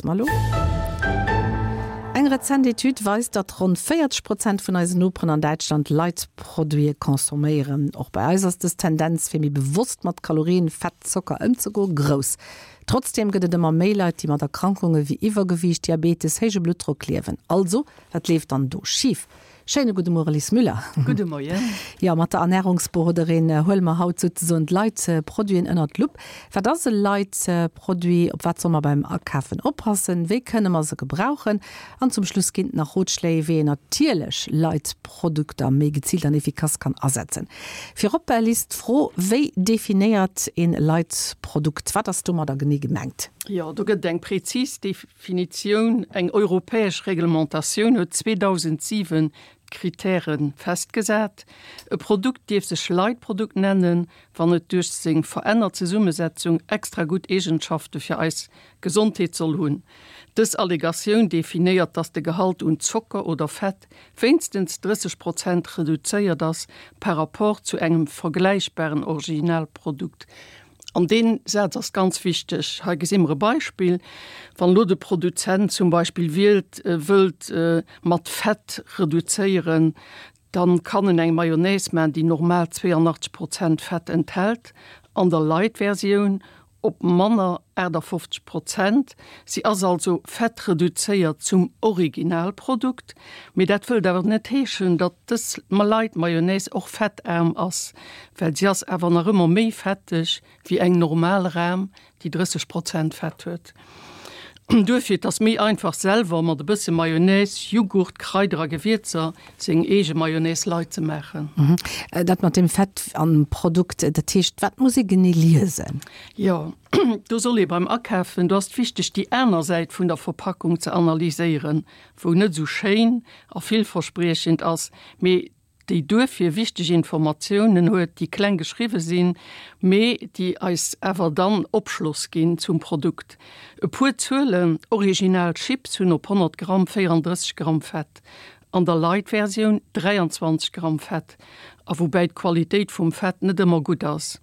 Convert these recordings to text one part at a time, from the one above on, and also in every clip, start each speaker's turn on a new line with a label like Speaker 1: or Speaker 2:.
Speaker 1: Malo. Eng rezent Etüd weist, datt ronn 40 Prozent vun eisen Noperen an Däitschland Light-Produite consomméieren. Och bei eis ass dës Tendenz, fir méi bewosst mat Kalorien, Fett, Zocker ëmzegoen, grouss. Trotzdeem gëtt et ëmmer méi Leit, déi mat Erkrankunge wéi Iwwergewiicht, Diabetes, héije Bluttdrock liewen. Also, wat leeft dann do schif? Schéine gudde Muere Lis Müller.
Speaker 2: Gudde Moien.
Speaker 1: Jo, mat der Ernärungsberoderin huele mer haut souzesoen d'Light-Produiten ënnert d'Lupp. Wat ass e Light-Produit? Op wat soll mer beim Akafen oppassen? Wéi kënne mer se gebrauchen? An zum Schluss ginn et nach Rotschléi, wéi een natierlech Light-Produkter méi geziilt an efficace kann asetzen. Virop, Lis, d'Fro, Wéi definéiert een Light-Produkt? Wat ass domadder genee gemengt?
Speaker 2: Jo, do gëtt et eng prezis Definitioun, Eng europäesch Reglementatioun huet 2007 d'Kritäre festgesat. E Produkt dierf sech Leitprodukt nennen, wann et duerch seng verännert Zesummesetzung extra gutt Eegenschafte fir eis Gesondheet soll hunn. Dës Allegatioun definéiert, dass de Gehalt un Zocker oder Fett wéinstens 30 Prozent reduzéiert ass par rapport zu engem vergläichbaren Originalprodukt. An dee Saz ass ganz wichteg. Hei gesi mer e Beispill, Wann elo de Produzent zum Beispill wielt, wëllt mat Fett reduzéieren, da kann en eng Mayonnaise maachen, déi normal 82 Prozent Fett enthält, an der Light-Versioun op manner 58 Prozent. Si ass also fettreduzéiert zum Originalprodukt. Mee dat wëllt awer net heeschen, datt dës Light-Mayonnaise och fettaarm ass. Well si ass awer nach ëmmer méi fetteg wéi eng normal Ram, déi 30 Prozent Fett huet. Duerfir, et ass méi einfach selwer mat e bësse Mayonnaise, Jughurt, Kraider a Gewierzer seng eege Mayonnaise light ze maachen.
Speaker 1: Dat mat dem Fett am Produkt, dat heescht, wat muss ee genee liesen?
Speaker 2: Jo, do soll ee beim Akafen, do ass et wichteg déi aner Säit vun der Verpackung ze analyséieren, wou net esou schéin a villverspriechend ass, mee déi duerfir wichteg Informatiounen huet, déi kleng geschriwwe sinn, mee déi eis awer dann Opschloss ginn zum Produkt. E puer Zuelen, Original Chips hunn op 100 Gramm 34 Gramm Fett, an der Light-Versioun 23 Gramm Fett, a woubäi d'Qualitéit vum Fett net ëmmer gutt ass.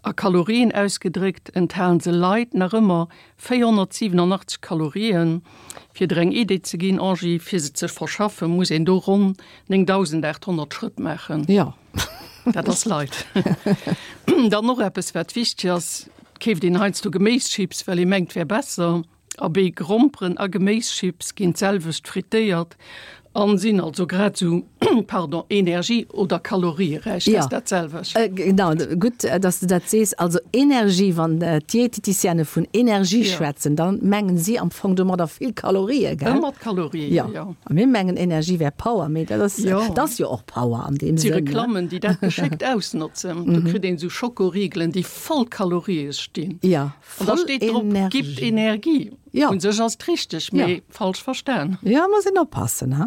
Speaker 2: A Kalorien ausgedréckt enthalen se Light nach ëmmer 487 Kalorien. Fir der eng Idee ze ginn, Angie, fir se ze verschaffen, muss een do ronn 9.800 Schrëtt maachen.
Speaker 1: Jo.
Speaker 2: Dat ass Light. Dann och eppes, wat wichteg ass, Et keeft een heiansdo Geméischips, well ee mengt, wär besser. Abee, Gromperen a Geméischips ginn d'selwecht frittéiert an sinn also grad esou, pardon, energie oder kalorieräich. Dat ass dat selwecht.
Speaker 1: Genau, gutt, dass de dat sees. Also Energie, wann d'Dieteticienne vun Energie schwätzen, da mengen si am Fong domadder vill Kalorien, gell?
Speaker 2: Ëmmer d'Kalorien, jo.
Speaker 1: A mir mengen Energie wär Power, mee dat ass, dat ass jo och Power an deem
Speaker 2: Sënn. Et si Reklammen, déi dat geschéckt ausnotzen. Do kritt een esou Schokoriegelen, déi voll Kalorië stinn.
Speaker 1: Jo.
Speaker 2: An da steet drop, gibt Energie.
Speaker 1: Ja.
Speaker 2: Un sech ass et richteg, mee falsch verstan.
Speaker 1: Ja, muss een oppassen, ha.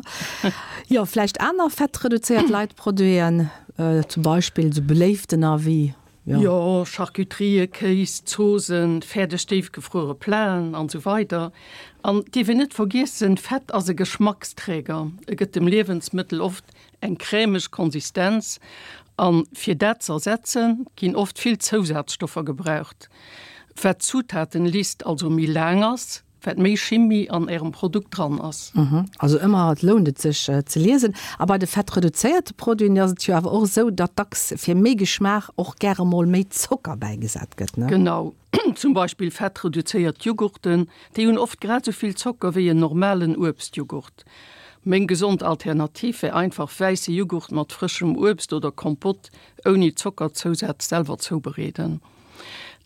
Speaker 1: Jo, vläicht aner fettreduzéiert Leitproduiten, zum Beispill esou beléiftener wéi,
Speaker 2: jo. Jo, Charcuterien, Kéis, Zoosen, fäerdeg déifgefruere Platen an esou weider. An et dierf een net vergiessen, Fett ass e Geschmacksträger. E gëtt dem Liewensmëttel oft Eng crèmeg Konsistenz, an fir dat z'ersetzen ginn oft vill Zousazstoffer gebraucht. Wat d'Zutatenlist also méi laang ass, wat méi Chimie an ärem Produkt dran ass.
Speaker 1: Also ëmmer lount et sech ze liesen. A bei de fettreduzéierte Produiten ass et jo awer och esou, datt dacks fir méi Geschmaach och gäre mol méi Zocker bäigesat gëtt, ne?
Speaker 2: Genau, zum Beispill fettreduzéiert Jughurten, déi hunn oft grad esou vill Zocker wéi en normalen Uebstjughurt. Meng gesond Alternativ wär einfach wäisse Jughurt mat frëschem Uebst oder Kompott ouni Zockerzousaz selwer zoubereeden.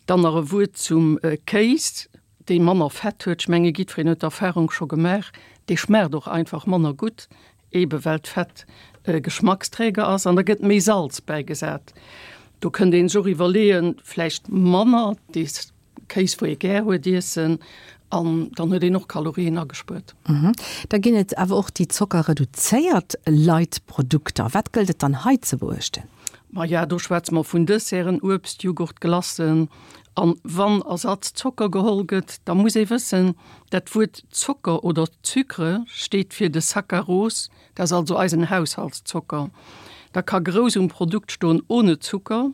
Speaker 2: Dann nach e Wuert zum Kéis, dee manner Fett huet. Ech menge jiddwereen huet d'Erfarung scho gemaach, dee schmaacht och einfach manner gutt, ebe well d'Fett e Geschmacksträger ass an da gëtt méi Salz bäigesat. Do kënnt een sech och iwwerleeën, vläicht manner dees Kéis wou ee gär huet iessen an dann huet een och Kalorien agespuert.
Speaker 1: Da ginn et awer och déi zockerreduzéiert Light Produkter. Wat gëllt et dann hei ze beuechten?
Speaker 2: Maja, do schwätze mer vun Desserten, Uebst, Jughurt, Glacen. An wann Ersatz-Zocker geholl gëtt, da muss ee wëssen, dat Wuert Zocker oder Sucre steet fir de Saccharose, Dat ass also eisen Haushaltszocker. Da ka grouss um Produkt stoen ohne Zucker,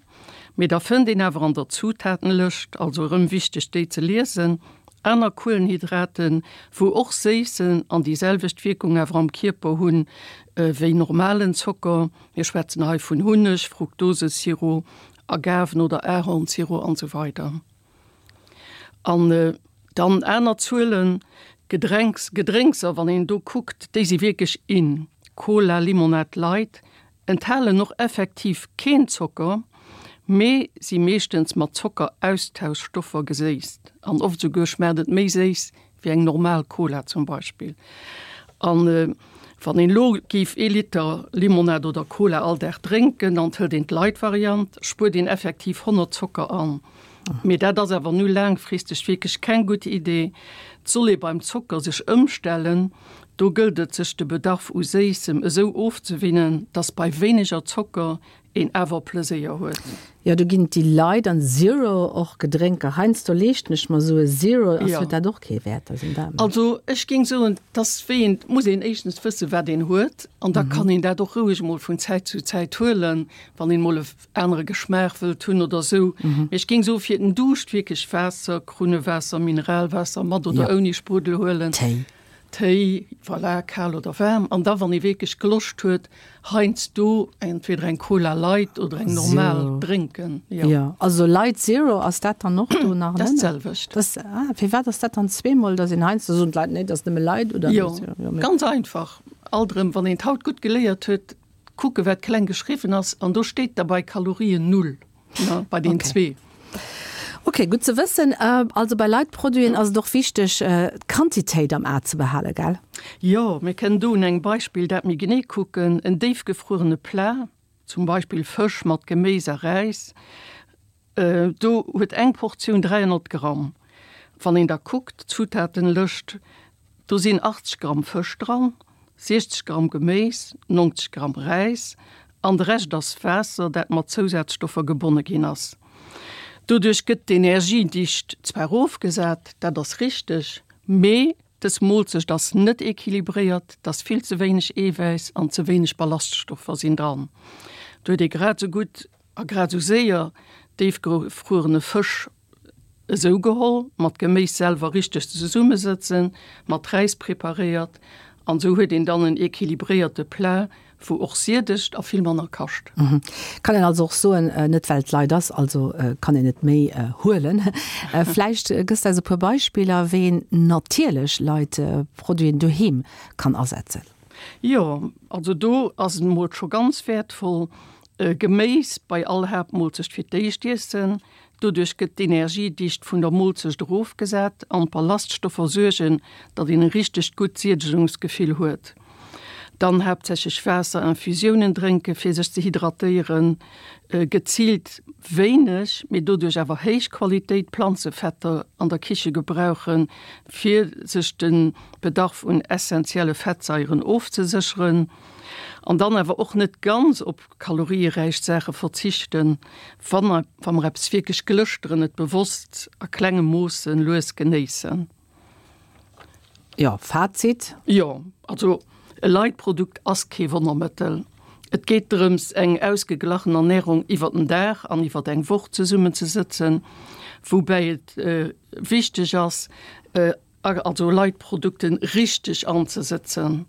Speaker 2: mee da fënnt een awer an der Zutatenlëscht, also erëm wichteg déi ze liesen, Aner Kuelenhydraten, wou och séissen an déi selwecht Wierkung awer am Kierper hunn wéi normalen Zocker, mir schwätzen hei vun Hunneg, Fructosesirop, Agaven oder Ahornsirop an esou weider. An dann aner Zuelen, Gedrenks, Gedrénkser, wann een do kuckt, déi si wierklech in, Cola, Limonad Light, enthalen och effektiv keen Zocker, mee si meeschtens mat Zockeraustauschstoffer geséisst an oft esouguer schmaacht et méi séiss wéi eng normal Cola zum Beispill. An wann een elo géif ee Liter Limonad oder Cola all Dag drénken an et hëlt een d'Light-Variant, spuert een effektiv 100 Zocker an. Mee dat ass awer nu laangfristeg wierklech keng gutt Idee. Et soll ee beim Zocker sech ëmstellen. Do gëllt et sech de Bedarf u Séissem esou ofzewinnen, dass bei wéineger Zocker een awer Pleséier huet.
Speaker 1: Jo, do ginn et déi Light an Zero och Gedrénker. Heiansdo leeschten ech mer esou e Zero, ass huet dat och kee Wäert?
Speaker 2: Also ech géing soen, dass wéi een, muss een éischtens wësse wat een huet an da kann een dat och roueg emol vun Zäit zu Zäit huelen, wann een emol e anere Geschmaach wëllt hunn oder esou. Mee ech géing soen, fir den Duuscht wierklech Waasser, Krunnewaasser, Mineralwaasser mat oder ouni Spruddel huelen.
Speaker 1: Téi.
Speaker 2: Téi, voilà, kal oder waarm. An da wann ee wierklech Gloscht huet, heiansdo entweder eng Cola Light oder eng normal drénken.
Speaker 1: Jo. Jo, also Light Zero, ass dat dann och do nach?
Speaker 2: Dat ass d'selwecht.
Speaker 1: Dat, ah, firwat ass dat dann zweemol, dass een heiansdo soen d'Leit, nee, dat ass nëmme Light oder?
Speaker 2: Jo, ganz einfach. Alt erëm, wann een d'haut gutt geléiert huet, Kucke wat kleng geschriwwen ass an do steet da bei Kalorien null, ne, bei den zwee.
Speaker 1: Ok, gutt ze wëssen. Also bei Light-Produiten ass et och wichteg d'Quantitéit am A ze behalen, gell?
Speaker 2: Jo, mir kënnen do un engem Beispill dat méi genee kucken. En déifgefruerene Plat, zum Beispill Fësch mat Geméis a Räis, Do huet eng Portioun 300 Gramm. Wann een da kuckt, d'Zutatenlëscht, do sinn 80 Gramm Fësch dran, 60 Gramm Geméis, 90 Gramm Räis an de Rescht ass Waasser, dat mat Zousazstoffer gebonne ginn ass. Doduerch gëtt d'Energiedicht zwar erofgesat, dat ass richteg, mee dës Moolzecht ass net equilibréiert, et ass vill ze wéineg Eewäiss an ze wéineg Ballaststoffer sinn dran. Do huet ee grad esou gutt A grad esou séier déifgefruerene Fësch esou geholl, mat Geméis selwer richteg zesummesëtzen, mat Räis preparéiert an esou huet een dann en equilibréierte Plat, wou och siedegt a vill manner kascht.
Speaker 1: Kann een also och soen, net well et Leit ass, also kann een et méi huelen. Vläicht gëss de eis e puer Beispiller, wéi een natierlech Leit Produiten doheem kann asetzen.
Speaker 2: Jo, also do ass et emol scho ganz wäertvoll, Geméis bei all Haaptmoolzecht fir d'éischt iessen. Doduerch gëtt d'Energiedicht vun der Moolzecht erofgesat an d'Ballaststoffer suergen, datt een e richtegt gutt Siedegungsgefill huet. Dann haaptsächlech Waasser, Infusiounen drénken, fir sech ze hydratéieren. Geziilt wéineg, mee doduerch awer héich Qualitéit Planzefetter an der Kiche gebrauchen, fir sech de Bedarf un essentielle Fettsaieren ofzesécheren. An dann awer och net ganz op kalorieräich Saache verzichten, wa mer eppes wierklech glëschteren, et bewosst a klenge Moosse lues genéissen.
Speaker 1: Jo, Fazit?
Speaker 2: Jo, also e Light-Produkt ass kee Wonnermëttel. Et geet drëms, eng ausgeglachen Ernärung iwwer den Dag an iwwer eng Woch zesummenzesëtzen, woubäi et wichteg ass, also Light-Produkten richteg anzesëtzen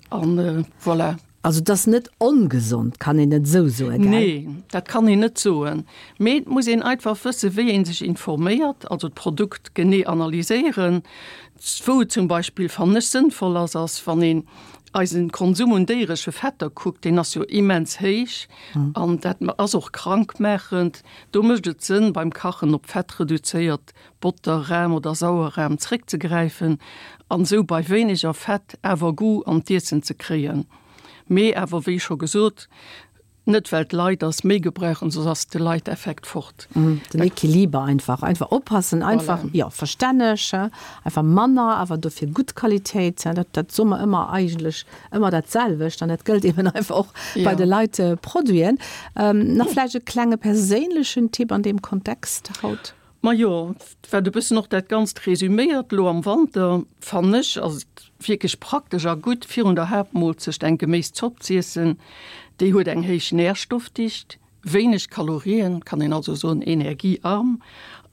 Speaker 2: an voilà.
Speaker 1: Also et ass net ongesond, kann een net esou soen, gell?
Speaker 2: Nee, dat kann een net soen. Mee et muss een einfach wëssen, wéi ee sech informéiert, also d'Produkt genee analyséieren. Wou et zum Beispill, fannen ech, sënnvoll ass, ass wann een eisen Konsum un déieresche Fetter kuckt, deen ass jo immens héich an dat ass och krankmaachend. Do mécht et Sënn, beim Kachen op fettreduzéiert Botter, Ram oder Sauerram zréckzegräifen an esou bei wéineger Fett awer Goût an d'Iessen ze kréien. Mee awer wéi scho gesot, net well d'Leit ass méi gebrauchen, soss ass de Light-Effekt fort.
Speaker 1: Den Equiliber einfach, einfach oppassen, einfach, jo, verstänneg, einfach manner, awer dofir gutt Qualitéit, dat, dat soe mer ëmmer eigentlech ëmmer dat selwecht an dat gëllt eben einfach och bei de Light-Produiten. Nach vläicht e klenge perséinlechen Tipp an deem Kontext haut?
Speaker 2: Majo, wat e bëssen och dat Ganzt resüméiert, Elo am Wanter, fannen ech, ass et wierklech praktesch a gutt, virun der Haaptmoolzecht eng Geméiszopp z'iessen. Déi huet eng héich Närstoffdicht, wéineg Kalorien, kann een also soen energiearm,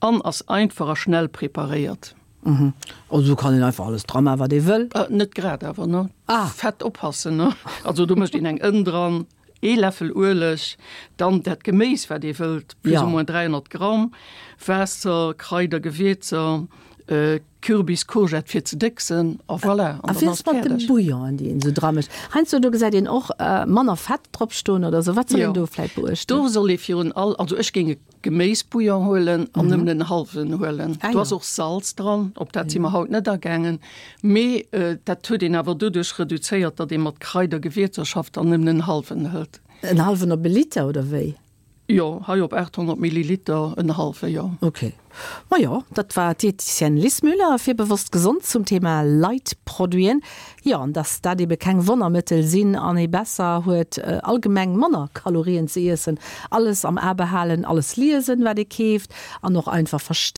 Speaker 2: an ass einfach a schnell preparéiert.
Speaker 1: Mhm. Also do kann een einfach alles dra maachen, wat ee wëll?
Speaker 2: Net grad awer, ne? Ah. Fett oppassen, ne? Also do mécht een eng Ënn dran, ee Läffel Ueleg, dann dat Geméis, wat ee wëllt, plus ou moins 300 Gramm, Waasser, Kraider, Gewierzer, Kürbis, Courgette fir ze décksen a voilà,
Speaker 1: an dann ass et fäerdeg. A wéi ass mat de Bouillonen, déi een esou dra mécht? Heiansdo do gesäit een och manner Fett drop stoen oder esou. Wat soll een do vläit
Speaker 2: beuechten? Do soll ee virun all, also ech géing e Geméisbouillon huelen an nëmmen en hallwen huelen. Do ass och Salz dran, op dat si mer haut net agaangen, mee dat huet een awer doduerch reduzéiert, datt ee mat Kraider, Gewierzer schafft an nëmmen en hallwen hëlt.
Speaker 1: En hallwen op e Liter oder wéi?
Speaker 2: Jo, hei op 800 Milliliter en hallwe, jo.
Speaker 1: Ok. Majo, dat war d'Diététicienne Lis Müller fir Bewosst Gesond zum Thema Light-Produiten. Jo, an dass dat ebe keng Wonnermëttel sinn an ee besser huet allgemeng manner Kalorien ze iessen. Alles am A behalen, alles liesen, wat ee keeft an och einfach verstoen.